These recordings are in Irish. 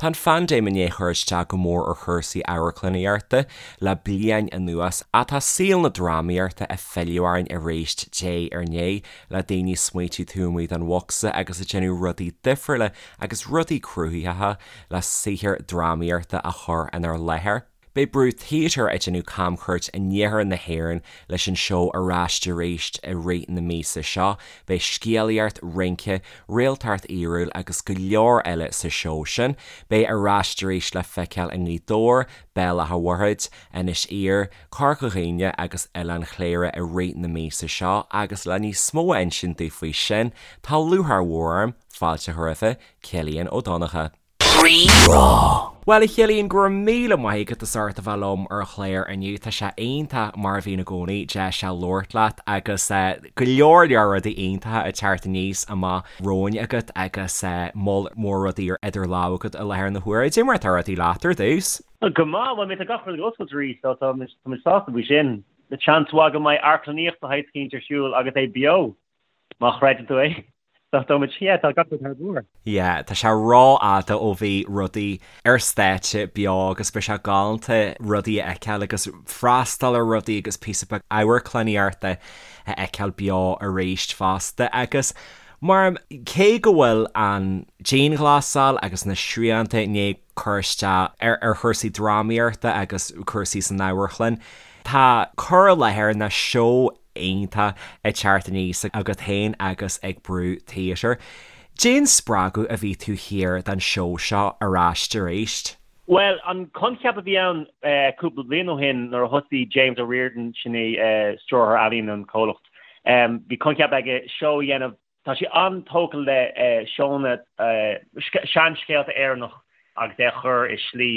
Tá an phaindéim i ndiaidh cur isteach go mór ar chúrsaí amharclannaíochta le bliain anuas, ach tá saol na drámaíochta ag filleadh orainn arís diaidh ar ndiaidh, le daoine ag smaoitiú taobh amuigh den bhocsa agus ag déanamh rudaí difriúla agus rudaí cruthaitheacha le saothar drámaíochta a chur inár láthair. Beidh Brú Theatre ag déanamh camchuairt in iarthar na hÉireann leis an seó Ar Ais Arís i rith na míosa seo. Beidh scéalaíocht, rince, réaltacht fhíorúil agus go leor eile sa seó sin. Beidh Ar Ais Arís le feiceáil i nGaoth Dobhair, Béal Átha Mhuirthid, Inis Oírr, Corca Dhuibhne agus Oileán Chléire i rith na míosa seo agus le níos mó a insint daoibh faoi sin, tá lúcháir mhór orm fáilte a chur roimhe, Cillian Ó Donnchadha. Rí-Rá. Bhuel, a Chillian, go raibh míle maith agat as ucht a bheith liom ar an chlár inniu. Tá sé iontach, mar a bhíonn i gcónaí, deis a labhairt leat agus go leor leor rudaí iontacha ag teacht aníos amach romhainn agat agus moll mór rudaí idir lámha agat i láthair na huaire. Cad é mar atá rudaí leat ar dtús? Go maith, bhuel, tá gach rud ag oscailt arís, so tá muid sásta faoi sin. Seans mhaith go mbeidh amharclannaíocht de shaghas eicínt ar siúl agus é beo, má chreideann tú é. So tá muid, yeah, tá gach rud thar barr. Yeah, tá sé rófhada ó bhí rudaí ar stáitse beo agus beidh sé galánta rudaí a fheiceáil agus freastal ar rudaí agus píosa beag amharclannaíochta a fheiceáil beo arís fosta. Agus mar cé go bhfuil an dianghlasáil agus na srianta i ndiaidh cur isteach ar chúrsaí drámaíochta agus cúrsaí san amharclann, tá cur i láthair nó seó iontach ag teacht aníos agat féin agus ag Brú Theatre. Cén spreagadh a bhí taobh thiar den seó seo Ar Ais Arís? Bhuel, an coincheap a bhí ann cúpla bliain ó shin nuair a thosaigh James O'Riordan, sin é stiúrthóir ealaíon an chomhlacht, bhí coincheap aige seó a dhéanamh Tá sé an-tógtha le seónna, seanscéalta Éireannach agus é a chur i slí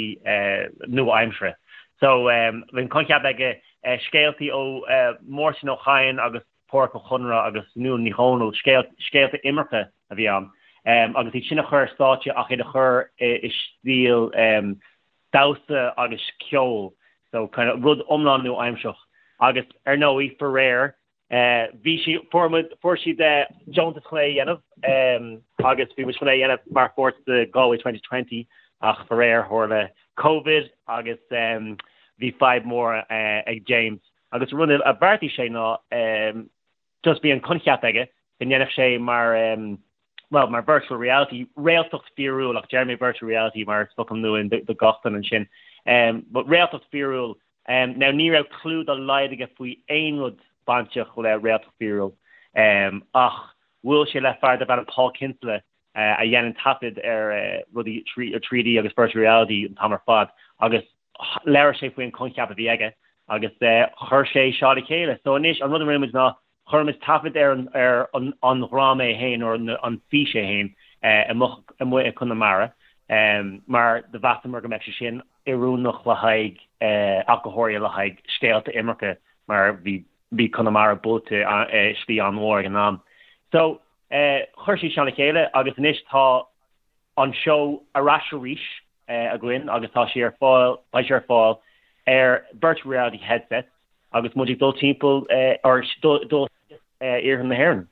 nua-aimseartha. So, bhí an coincheap aige scéaltaí ó Mháirtín Ó Cadhain agus Pádraic Ó Conaire agus Nuala Ní Dhomhnaill, scéalta imirce a bhí ann, agus iad sin a chur ar stáitse ach iad a chur i stíl damhsa agus ceol. So, kind of rud iomlán nua-aimseartha. Agus, ar ndóigh, faraor, Bhí sí, fuair muid, fuair siad deontas chun é a dhéanamh agus bhí muid chun é a dhéanamh mar pháirt de Galway 2020 ach faraor tharla Covid agus bhí fadhb mór ag James agus an rud a bheartaigh sé ná just bhí an coincheap aige go ndéanfadh sé mar bhuel mar virtual reality, réaltacht fíorúil ach deir mé virtual reality mar is focal nua do gach duine ansin but réaltacht fíorúil Now ní raibh clue dá laghad aige faoi aon rud bainteach le réaltacht fíorúil ach bhuail sé le fear darb ainm Paul Kinsella a dhéanann taifead ar rudaí 3D agus virtual reality an t-am ar fad agus labhair sé faoi an coincheap a bhí aige agus chuir sé seo le chéile. So anois an rud a rinne muid ná Chuir muid taifead ar ar an dhráma é féin, nó an fís é féin, amuigh amuigh i Conamara, mar do mheasamar go mbeadh sé sin oiriúnach le haghaidh, ach go háirithe le haghaidh scéalta imirce, mar bhí bhí Conamara buailte i slí an-mhór ag an am. So, chuir siad sin le chéile agus anois tá an seó ar ais arís againn agus tá sé ar fáil, beidh sé ar fáil ar virtual reality headsets, agus muid ag dul timpeall or dul iarthar na hÉireann.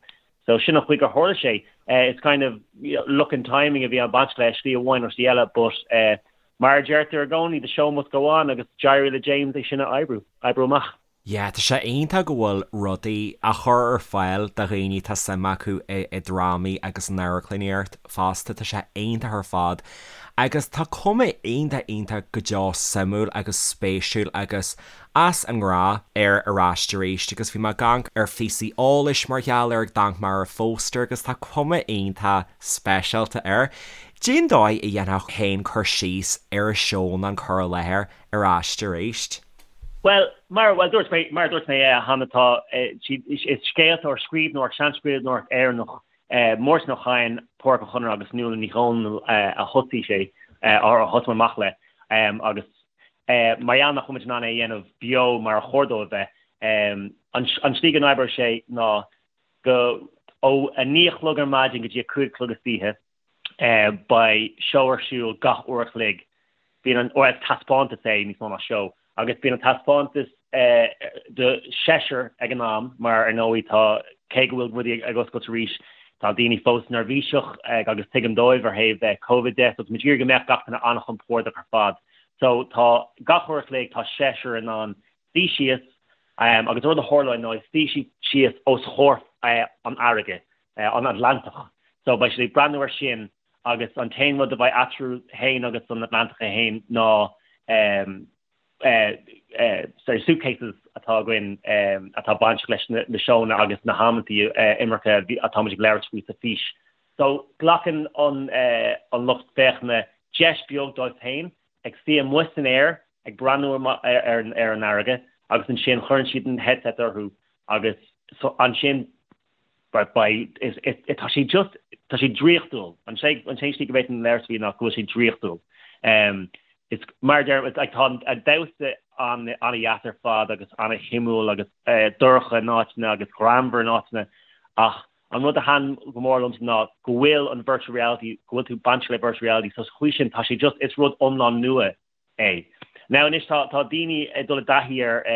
So sin an chaoi gur tharla sé. It's kind of luck and timing a bhí ag baint leis, slí amháin nó slí eile, but mar a deirtear i gcónaí, the show must go on agus d'éirigh le James é sin a oibriú, oibriú amach. Yeah, tá sé iontach go bhfuil rudaí á chur ar fáil do dhaoine atá suim acu i drámaí agus in amharclannaíocht fosta, tá sé iontach ar fad. Agus tá cuma iontach iontach go deo suimiúil agus spéisiúil agus as an ngnáth ar Ar Ais Arís agus bhí mé ag amharc ar phíosaí eolais mar gheall air, ag amharc ar an phóstaer agus tá cuma iontach speisialta air. Cén dóigh a dhéanfá féin cur síos ar an seó nó an cur i láthair Ar Ais Arís? Bhuel, mar, bhuel, dúirt mé, mar a dúirt mé cheana, tá, is scéalta ó scríbhneoireacht, seanscríbhneoireacht Éireannach, Máirtín Ó Cadhain, Pádraic Ó Conaire agus Nuala Ní Dhomhnaill a thosaigh sé, a thosaigh amach le, agus Mar gheall nach bhfuil muid in ann é a dhéanamh beo mar a chóir dó a bheith, an tslí go n-oibreoidh sé ná go ó 9 a chlog ar maidin go dtí 5 a chlog istoíche, beidh seó ar siúl gach uair a chloig. Bíonn an, or is taispeántas é níos mó ná seó, agus bíonn an taispeántas do sheisear ag an am mar ar ndóigh tá, cé go bhfuil rudaí ag oscailt arís. Tá daoine fós neirbhíseach agus tuigim dóibh ar thaobh Covid de, so tá muid ag iarraidh go mbeadh gach duine an-chompordach ar fad. So tá gach uair a chloig tá seisear in ann suí síos agus an rud a tharlóidh ná suí siad síos os chomhair an fharraige, an Atlantach. So beidh siad ag breathnú ar sin agus an t-aon rud a bheidh eatarthu féin agus an Atlantach é féin ná sorry, suitcases atá againn atá bainteach leis na seónna agus na hamantaí imirce atá muid ag labhairt faoi sa fís. So glacann an lucht féachana deis beag dóibh féin ag suí amuigh san aer ag breathnú ar an fharraige agus ansin cuireann siad an headset orthu agus ansin beidh, tá sé just, tá sé draíochtúil. An t-aon slí go bhféadfainn labhairt faoi ná go bhfuil sé draíochtúil. Is mar a deirim, like tá an damhsa an-dheas ar fad agus an-shuimiúil agus dorcha in áiteanna agus greannmhar in áiteanna ach an rud a thaitin go mór liomsa ná go bhfuil an virtual reality, go bhfuil tú bainteach le virtual reality so sa chaoi sin tá sé just, is rud iomlán nua é. Now anois tá daoine ag dul i dtaithí ar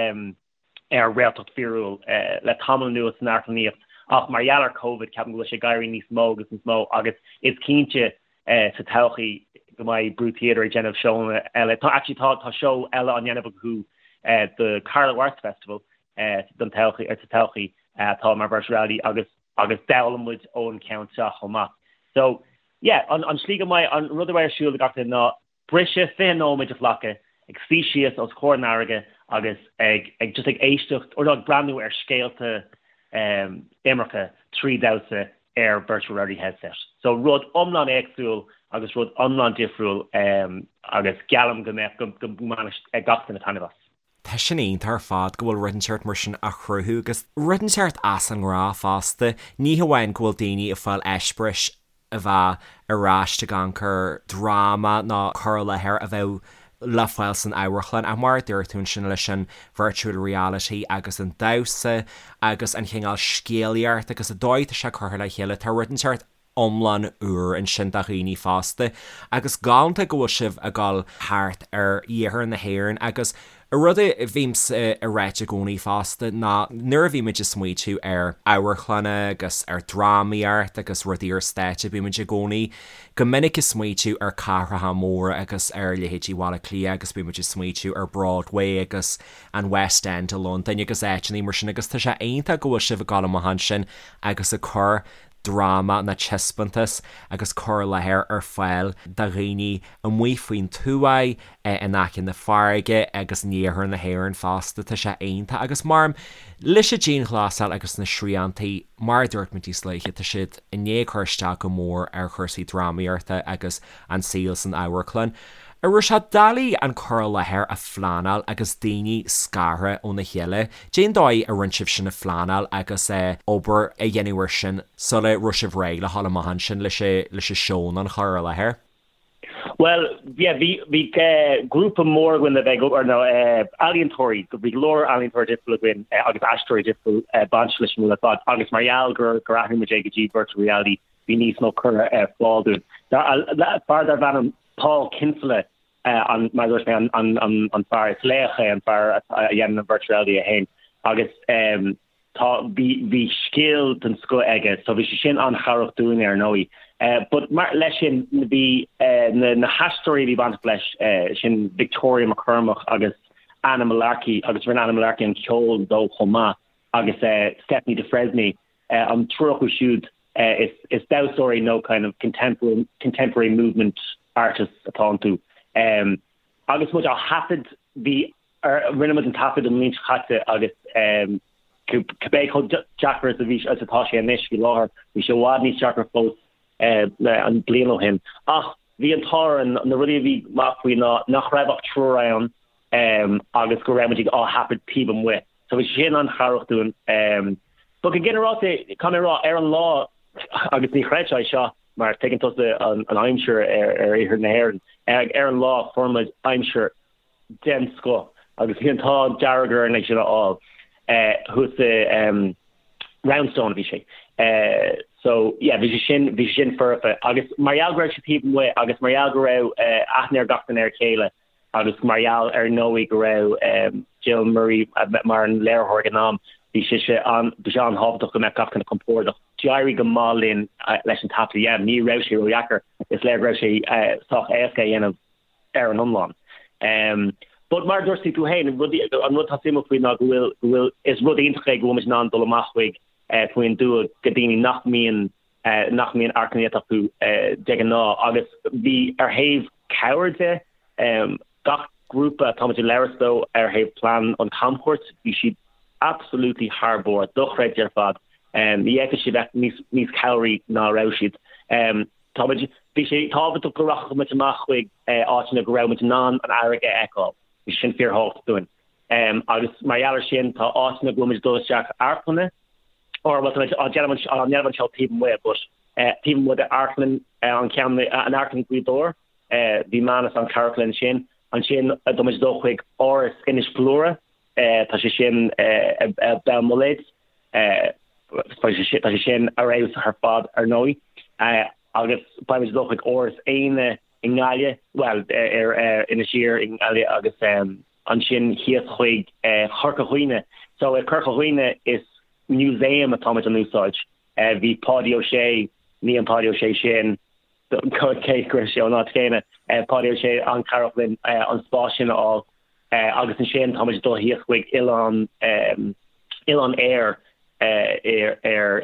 ar réaltacht fíorúil le tamall anuas san amharclannaíocht ach mar gheall ar Covid ceapaim go bhfuil sé ag éirí níos mó agus níos mó agus is cinnte sa todhchaí go mbeidh Brú Theatre ag déanamh seónna eile. Tá actually tá tá seó eile á ndéanamh acu do Carlow Arts Festival don todhchaí sa todhchaí atá mar virtual reality agus agus d'fhoghlaim muid ón ceann seo chomh maith. So yeah an an slí go mbeidh an rud a bheidh ar siúl ag gach duine ná briseadh 20 nóiméad a ghlacadh ag suí síos os comhair an fharraige agus ag ag just ag éisteacht or no ag breathnú ar scéalta imirce trí dhamhsa ar virtual reality headset. So rud iomlán éagsúil agus rud iomlán difriúil agus geallaim go mbeadh go mbainfidh gach duine taitneamh as. Tá sin iontach ar fad go bhfuil rud inteacht mar sin á chruthú agus rud inteacht as an ngnáth fosta. Ní hamháin go bhfuil daoine ag fáil eispéiris a bheadh ar ais ag amharc ar dráma nó cur i láthair a bheadh le fáil san amharclann ach mar a dúirt tú ansin leis an virtual reality agus an damhsa agus an chineál scéalaíocht agus an dóigh atá sé curtha le chéile tá rud inteacht iomlán úr ansin do dhaoine fosta agus galánta go bhfuil sibh ag dul thart ar iarthar na hÉireann agus rud a bhímse ag ráit i gcónaí fosta ná nuair a bhímid ag smaoitiú ar amharclanna agus ar drámaíocht agus rudaí ar stáitse bímid i gcónaí go minic ag smaoitiú ar cathracha móra agus ar leithéidí Bhaile Átha Cliath agus bímid ag smaoitiú ar Broadway agus an West End i Londain agus áiteanna mar sin agus tá sé iontach go bhfuil sibh ag dul amach ansin agus ag cur dráma nó taispeántas agus cur i láthair ar fáil do dhaoine amuigh faoin tuath, in aice na farraige agus in iarthar na hÉireann fosta. Tá sé iontach agus mar leis an dianghlasáil agus na sriantaí, mar a dúirt muid níos luaithe, tá siad i ndiaidh cur isteach go mór ar chúrsaí drámaíochta agus an saol san amharclann. An raibh sé doiligh an cur i láthair a phleanáil agus daoine scartha óna chéile? Cén dóigh a rinne sibh sin a phleanáil agus obair a dhéanamh air sin sula raibh sibh réidh le dhul amach ansin leis leis an seó nó an chur i láthair? Bhuel, yeah, bhí bhí grúpa mór againn le bheith ag obair, nó ealaíontóirí, bhí go leor ealaíontóirí difriúil againn agus aisteoirí difriúil bainteach leis an rud ar fad agus mar gheall gur gur athraigh muid é go dtí virtual reality bhí níos mó curtha ar fáil dúinn. Fear darbh ainm Paul Kinsella, an, mar a dúirt mé, an, an, an fear, is laoch é an fear a dhéanann an virtual reality é féin agus tá, bhí, bhí scil den scoth aige so bhí sé sin an-chabhrach dúinn ar ndóigh. But mar, leis sin, bhí na, na haisteoirí a bhí bainteach leis, sin Victoria McCormack agus Anna Mullarkey agus rinne Anna Mullarkey an ceol dó chomh maith agus Stephanie de Fresnay, an triúr acu siúd, Is damhsóirí nó kind of contemporary contemporary movement artists atá iontu. Agus muid á thaifead, bhí rinne muid an taifead an bhliain seo caite agus cibé chomh deacair is a bhí is atá sé anois faoi láthair, bhí sé i bhfad níos deacra fós an bliain ó shin. Ach bhí an t-ádh orainn, na rudaí a bhí maith faoi ná nach raibh ach triúr ann agus go raibh muid á thaifead taobh amuigh. So bhí sé sin an-chabhrach dúinn. But go ginearálta, caithfidh mé a rá, ar an lá, agus ní chreidfeá é seo mar tuigeann tusa an aimsir ar iarthar na hÉireann, ar an lá fuair muid aimsir den scoth agus bhí an t-ádh dearg orainn é sin a fháil thuas i Roundstone a bhí sé. So yeah, bhí sé sin, bhí sé sin foirfe agus mar gheall go raibh sé taobh amuigh agus mar gheall go raibh aithne ar gach duine ar a chéile, Agus mar gheall ar ndóigh go raibh Jill Murray mar an léiritheoir ag an am, Bhí sé sé an, bhí sé an-tábhachtach go mbeadh gach duine compordach. D'éirigh go maith linn leis an taifead a dhéanamh. Ní raibh sé ródheacair. Is léir go raibh sé sách éasca a dhéanamh ar an iomlán. But mar a dúirt tú féin, an rud atá suimiúil faoi ná go bhfuil, go bhfuil, is rud iontach é go bhfuil muid in ann dul amach chuig faoin dtuath go daoine nach mbíonn, nach mbíonn amharclannaíocht acu de ghnáth. Agus bhí ar thaobh cabhair de, gach grúpa atá muid ag labhairt leo ar thaobh plean an camchuairt, bhí siad absolutely thar barr, dochreidte ar fad. Ní fhéadfadh siad bheith níos, níos cabhraí ná a raibh siad. Tá muid, bhí sé tábhachtach go rachadh muid amach chuig áiteanna go raibh muid in ann an fharraige a fheiceáil. Bhí sin fíorthábhachtach dúinn. Agus mar gheall ar sin, tá áiteanna go bhfuil muid ag dul isteach amharclanna, or bhuel tá muid á déanamh á ndéanamh an seó taobh amuigh, but taobh amuigh de amharclann an ceann, an amharclann Ghaoth Dobhair, bhí Manus an-chabhrach linn ansin. Ansin tá muid ag dul chuig Áras Inis Gluaire, tá sé sin i Béal Muilléid, tá sé sin ar fheabhas ar fad ar ndóigh. Agus beidh muid ag dul chuig Áras Éanna i nGaillimh, bhuel ar Inis Oírr i nGaillimh agus ansin thíos chuig Corca Dhuibhne. So i Corca Dhuibhne is museum atá muid in úsáid. Bhí Páidí Ó Sé, ní an Páidí Ó Sé sin, cé go raibh sé ón áit chéanna, Páidí Ó Sé an-chabhrach linn an spás sin a fháil. Agus ansin tá muid ag dul thíos chuig Oileán, Oileán Éir ar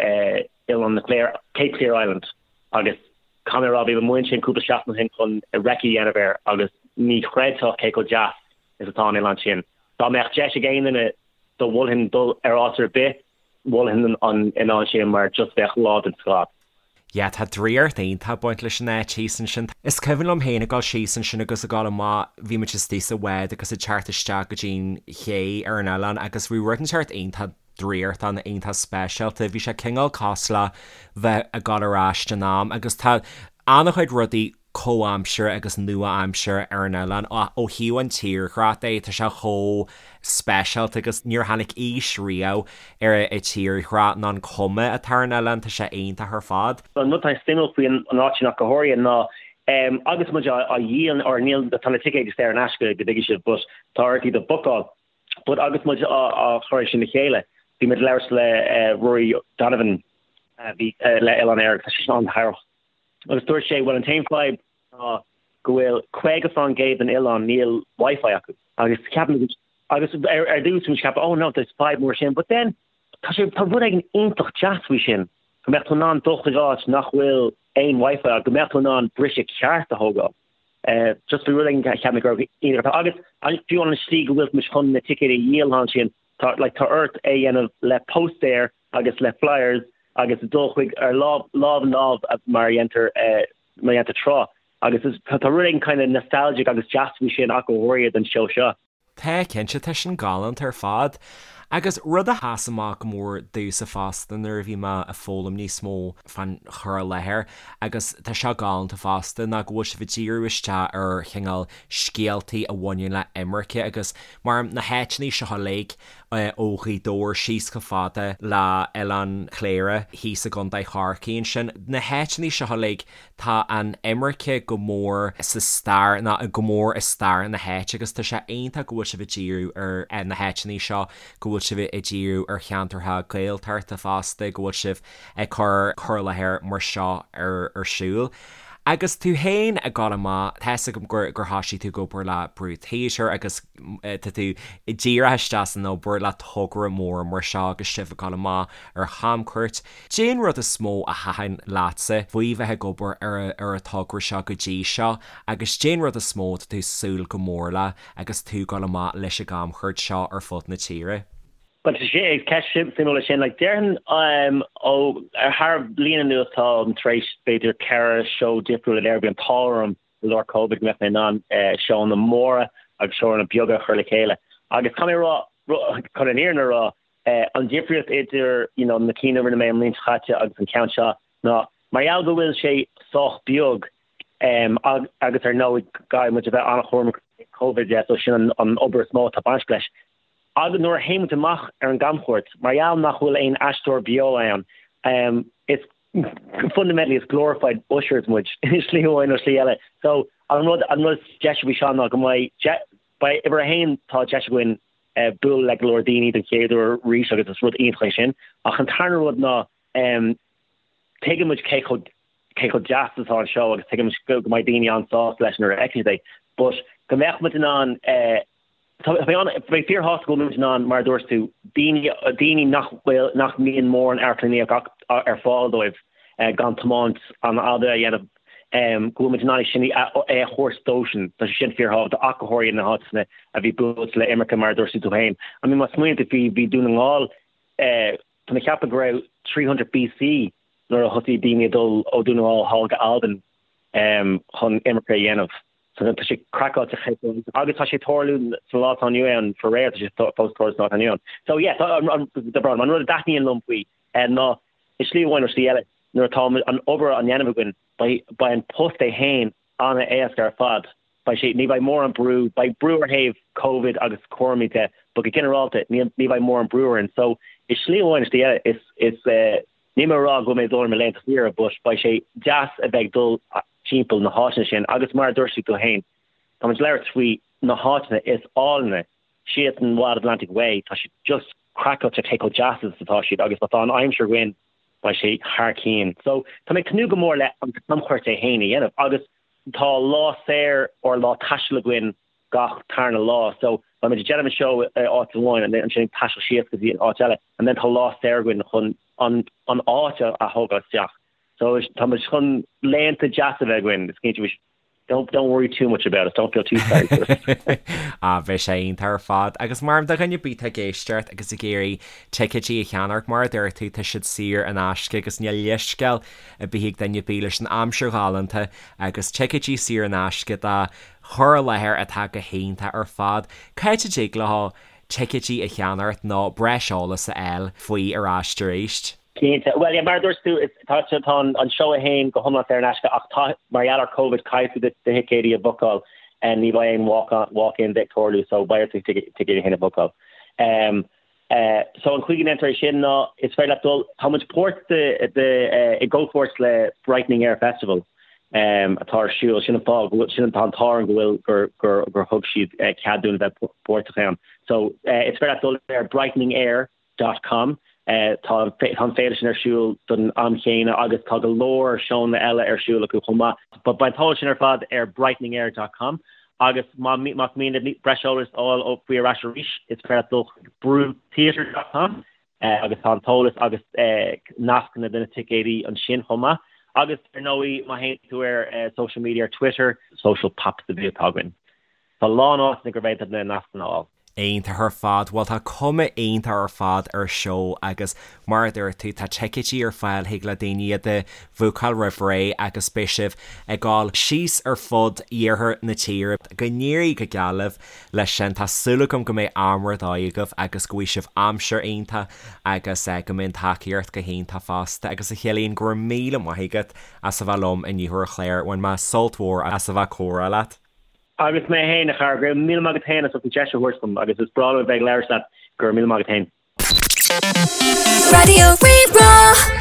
Oileán na Cléire, Cape Clear Island. Agus caithfidh mé a rá, bhí mé amuigh ansin cúpla seachtain ó shin chun recce a dhéanamh air agus ní chreidfeá cé chomh deas is atá an oileán sin. Dá mbeadh deis ag aon duine do mholfainn dul ar áit ar bith, mholfainn an oileán sin mar just bheadh lá den scoth. Yeah, tá draíocht iontach ag baint leis an áit thíos ansin. Is cuimhin liom féin ag dul síos ansin agus ag dul amach, bhí muid istigh sa bhád agus ag teacht isteach go dtí'n ché ar an oileán agus bhí rud inteacht iontach draíochtach, iontach speisialta. Bhí sé cineál cosúil le bheith ag dul ar ais in am agus tá an-chuid rudaí comhaimseartha agus nua-aimseartha ar an oileán. Ó thaobh an tírdhreach de, tá sé chomh speisialta agus níor tháinig aois riamh ar an tírdhreach ná an cuma atá ar an oileán, tá sé iontach ar fad. An rud atá suimiúil faoi an áit sin ach go háirithe ná agus muid á dhíol, or níl, tá na ticéid saor in aisce go dtuigfidh sibh, but tá ort iad a bhookáil. But agus muid á chur sin le chéile, bhí muid ag labhairt le Rory Donovan a bhí le Oileán Éire agus tá sé sin an-chabhrach. Agus dúirt sé, bhuel an t-aon fadhb ná go bhfuil 50% den oileán níl Wi-Fi acu. Agus cheap muid, agus ar ar dtús bhí muid ag ceapadh, oh no, there's fadhb mór sin, but then tá sé, tá rud éigin iontach deas faoi sin, go mbeadh tú in ann dul chuig áit nach bhfuil aon Wi-Fi acu, go mbeadh tú in ann briseadh ceart a thógáil. Just bhí rud éigin a cheap mé go raibh iontach agus fiú an slí go bhfuil muid chun na ticéid a dhíol ansin, tá like tá ort é a dhéanamh le póstaeir agus le flyers agus dul chuig ar lámh lámh in lámh mar a dhéantar mar a dhéantar tráth agus is tá rud éigin kind of nostalgic agus deas faoi sin ach go háirithe don seó seo. Tá, cinnte, tá sin galánta ar fad. Agus rud a sheas amach go mór domhsa fosta nuair a bhí mé ag foghlaim níos mó fán chur i láthair, agus tá seo galánta fosta, ná go bhfuil sibh ag díriú isteach ar chineál scéaltaí a bhaineann le imirce agus mar na háiteanna seo uilig ó Ghaoth Dobhair síos chomh fada le Oileán Chléire thíos i gContae Chorcaí ansin, na háiteanna seo uilig Tá an imirce go mór sa stair, nó go mór i stair na háite agus tá sé iontach go bhfuil sibh ag díriú ar na háiteanna seo, go bhfuil sibh ag díriú ar cheantartha Gaeltachta fosta, go bhfuil sibh ag cur cur i láthair mar seo ar siúl. Agus tú féin ag dul amach, tá 'fhios agam gur gur thoisigh tú ag obair le Brú Theatre agus tá tú díreach isteach san obair le togra mór mar seo agus sibh ag dul amach ar chamchuairt. Cén rud is mó a thaitin leatsa faoi bheith ag obair ar ar an togra seo go dtí seo agus cén rud is mó atá tú ag súil go mór le agus tú ag dul amach leis an gcamchuairt seo ar fud na tíre? Bhuel, tá sé, ceist suimiúil é sin. Like, déarfainn ó thar bliain anuas táim tar éis b'fhéidir 4 seó difriúil a léiriú. Bhí an t-ádh orm i lár Covid go mbeadh mé in ann seónna móra agus seónna beaga a chur le chéile. Agus caithfidh mé a rá, chun an fhírinne a rá, An difríocht idir you know na cinn a rinne mé an bhliain seo caite agus an ceann seo ná mar gheall go bhfuil sé sách beag agus ar ndóigh caithfidh muid a bheith an-chúramach Covid de so sin an obair is mó atá bainteach leis. Agus nuair a théann muid amach ar an gcamchuairt, mar gheall nach bhfuil aon aisteoir beo ann, is fundamentally is glorified ushers muid i slí amháin nó slí eile. So an rud an rud is deise faoi seo ná go mbeidh, beidh uimhir a haon tá deis againn. bualadh le go leor daoine den chéad uair arís agus is rud iontach é sin. Ach an tarna rud ná tuigeann muid cé chomh cé chomh deas is atá an seó agus tuigeann muid go mbeidh daoine an-sásta leis nuair a fheiceann siad é. But go mbeadh muid in ann Tá mé an, mé fíorshásta go bhfuil muid in ann, mar a dúirt tú, daoine, daoine nach bhfuil, nach mbíonn mórán amharclannaíocht ar fáil dóibh gan tiomáint an-fhada a dhéanamh, go bhfuil muid in ann é sin a, é a thabhairt dóibhsean. Tá sé sin fíorthábhachtach, ach go háirithe na háiteanna a bhí buailte le imirce, mar a dúirt tú féin. I mean, má smaoiníonn tú faoi, bhí Dún na nGall, tá mé ag ceapadh go raibh 300 BC nuair a thosaigh daoine ag dul ó Dún na nGall thall go Albain chun imirce a dhéanamh. So tá sé craiceáilte cé chomh agus tá sé ag tarlú sa lá atá inniu ann faraor tá sé fós ag tarlú sa lá atá inniu ann. So yeah tá an an tá brón an rud a dtaitníonn liom faoi ná i slí amháin nó slí eile nuair atá an obair á ndéanamh againn beidh beidh an post é féin an-éasca ar fad. Beidh sé ní bheidh mórán brú beidh brú ar thaobh Covid agus cúraimí de but go ginearálta ní ní bheidh mórán brú orainn. So i slí amháin nó slí eile is is níl mé ag rá go bhfuil mé ag dul ar mo laethanta saoire but beidh sé deas a bheith ag dul timpeall na háiteanna sin agus mar a dúirt tú féin, tá muid ag labhairt faoi na háiteanna is áilne síos an Wild Atlantic Way, tá siad just craiceáilte cé chomh deas is atá siad agus má tá an aimsir againn beidh sé thar cionn. So tá mé ag tnúth go mór le an camchuairt é féin a dhéanamh agus tá lá saor or lá taistil againn gach tarna lá so beidh muid ag déanamh an seó i áit amháin and then ansin ag taisteal síos go dtí an áit eile and then tá lá saor againn chun an an áit a thógáil isteach. So tá muid chun laethanta deasa a bheith againn, is cinnte, don't don't worry too much about us, don't feel too sorry for us. Ah, bheadh sé iontach ar fad. Agus mar do dhuine ar bith atá ag éisteacht agus ag iarraidh ticéidí a cheannacht, mar a dúirt tú, tá siad saor in aisce agus níl leithscéal ar bith ag duine ar bith leis an aimsir ghalánta agus ticéidí saor in aisce do chur i láthair atá go hiontach ar fad. Cá háit a dtig leo ticéidí a cheannacht nó breis eolas a fháil faoi ar ais arís? Cinnte. Bhuel, yeah, mar a dúirt tú, is, tá, tá an, an seó é féin go hiomlán saor in aisce ach tá, mar gheall ar Covid, caithfidh tú do, do thicéidí a bhookáil. Ní bheidh aon walk on, walk in ag tarlú so beidh ort do thicéidí féin a bhookáil. Um, eh, so an chaoi go ndéantar é sin ná is féidir leat dul, tá muid páirt de, de, eh, i gcomhpháirt le Brightening Air Festival um, atá ar siúl, sin an fáth go bhfuil, sin an, tá an t-ádh orainn go bhfuil, gur, gur, gur thug siad eh, cead dúinn a bheith páirteach ann. So, eh, is féidir leat dul ar Brightening Air dot com. Tá an féile sin ar siúl don am chéanna agus tá go leor seónna eile ar siúl acu chomh maith. But beidh an t-eolas sin ar fad ar brighteningair dot com agus má más mian libh breis eolais a fháil faoi ar ais arís is féidir leat dul chuig brútheatre dot com agus tá an t-eolas agus nascanna do na ticéidí ansin chomh maith. Agus ar ndóigh má théann tú ar social media ar Twitter, Social Pops a bhí atá againn. Tá a lán áiteanna gur féidir na nascanna a fháil. Iontach ar fad. Bhuel tá cuma iontach ar fad ar seó agus mar a dúirt tú tá ticéidí ar fáil thig le daoine iad a bhúcáil roimh ré agus beidh sibh ag dul síos ar fud iarthar na tíre. Go n-éirí go geal libh leis sin. Tá súil agam go mbeidh am ar dóigh agaibh agus go bhfaighidh sibh aimsir iontach agus go mbeidh an tacaíocht go hiontach fosta. Agus a Chillian, go raibh míle maith agat as a bheith liom inniu ar an chlár. Bhain mé sult mhór as a bheith ag comhrá leat. Agus mé féin, a chara, go raibh míle maith agat féin as ucht an deis a thabhairt dom agus is breá liom a bheith ag labhairt leat, go raibh míle maith agat féin. Raidió Rí-Rá.